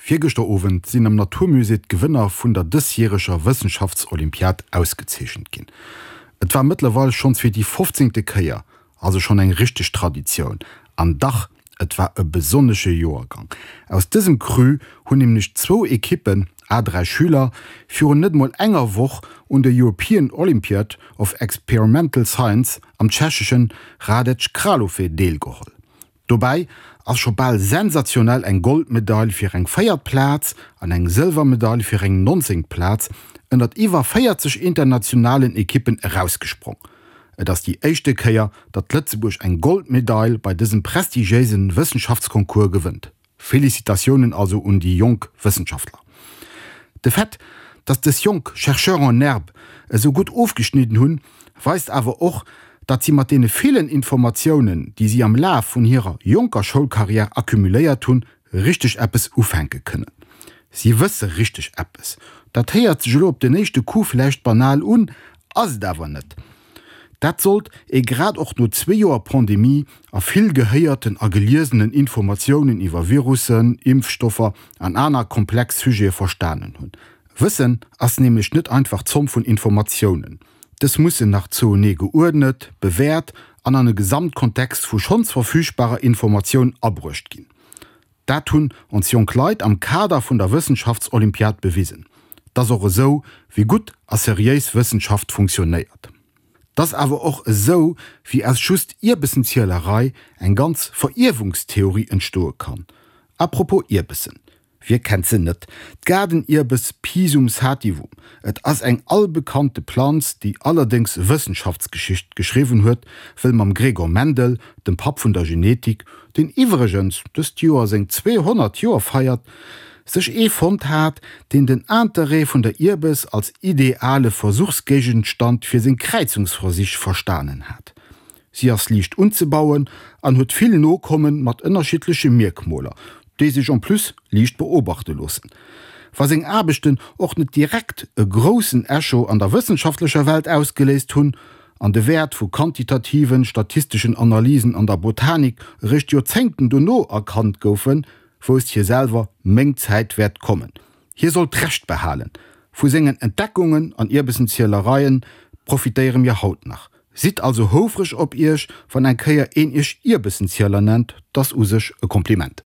Virgëschter Owend sinn am Natur Musée d'Gewënner vun der dësjäreger Wëssenschaftsolympiad ausgezeechent ginn. Et war mëttlerweil schonns fir déi fofzéngte Kéier, also schonn eng richteg Traditioun. An dach, et war e besonnesche Joergang. Aus dësem Cru hunn nämlech zwou Ekippen, à 3 Schüler, virun net mol enger Woch un der European Olympiad of Experimental Science am tschecheschen Hradec Králové deelgeholl. Dobäi ass scho bal sensationell eng Goldmedail fir eng véiert Plaz an eng Sëlwermedail fir eng nonzéngt Plaz ënnert iwwer 40 internationalen Ekippen erausgesprong. Et ass déi éischte Kéier, datt Lëtzebuerg eng Goldmedail bei dësem prestigiéise Wëssenschaftsconcours gewënnt. Félicitatiounen also un déi jonk Wëssenschaftler. De Fait, datt dës jonk Chercheurs en herbe esou gutt ofgeschnidden hunn, weist awer och, datt si mat deene villen Informatiounen, déi si am Laf vun hirer jonker Schoulcarrière accumuléiert hunn, richteg eppes ufänke kënnen. Si wësse richteg eppes. Dat héiert sech elo op den éischte Coup vläicht banal un, ass et awer net. Dat sollt ee grad och no zwee Joer Pandemie a vill gehéierten a geliesenen Informatiounen iwwer Virussen, Impfstoffer an aner komplex Sujete verstanen hunn. Wëssen ass nämlech net einfach d'Zomm vun Informatiounen. Dës mussen nach zouenee geuerdnet, bewäert an an e Gesamtkontext vu schonns verfügbarer Informatioun abruecht ginn. Dat hunn ons jonk Leit am Kader vun der Wëssenschaftsolympiad bewisen. T'ass och esou, wéi gutt a seriéis Wëssenschaft funktionéiert. T'ass awer och esou, wéi aus just Ierbessenzielerei eng ganz Verierwungstheorie entstoe kann. À propos Ierbessen, Wie kennt se net, d'Gaardenierbeß Pisum sativum. Et ass eng albekannte Planz, déi allerdéngs Wëssenschaftsgeschicht geschriwwen huet, wëll mam Gregor Mendel, dem Papp vun der Genetik, deen iwwregens dëst Joer seng 200 Joer feiert, sech ee fonnt hat, deen den Interêt vun der Ierbes als ideale Versuchsgéigenstand fir seng Kräizungsversich verstanen hat. Si ass liicht unzebauen an huet vill Nokommen mat ënnerschiddleche Mierkmoler, déi sech en plus liicht beobachte loossen. Wa seng Aarbechten och net direkt e groussen Echo an der wëssenschaftlecher Welt ausgeléist hunn an de Wäert vu quantitativen, statisteschen Analysen an der Botanik eréischt Joerzéngten dono erkannt goufen, wousst hie selwer, Meng Zäit wäert kommen. Hie sollt d'Recht behalen. Vu sengen Entdeckungen an Ierbessenzielereien profitéiere mir haut nach. Sidd also houfreg op iech, wann eng Kéier een iech Ierbessenzieler nennt, 't ass u sech e Kompliment.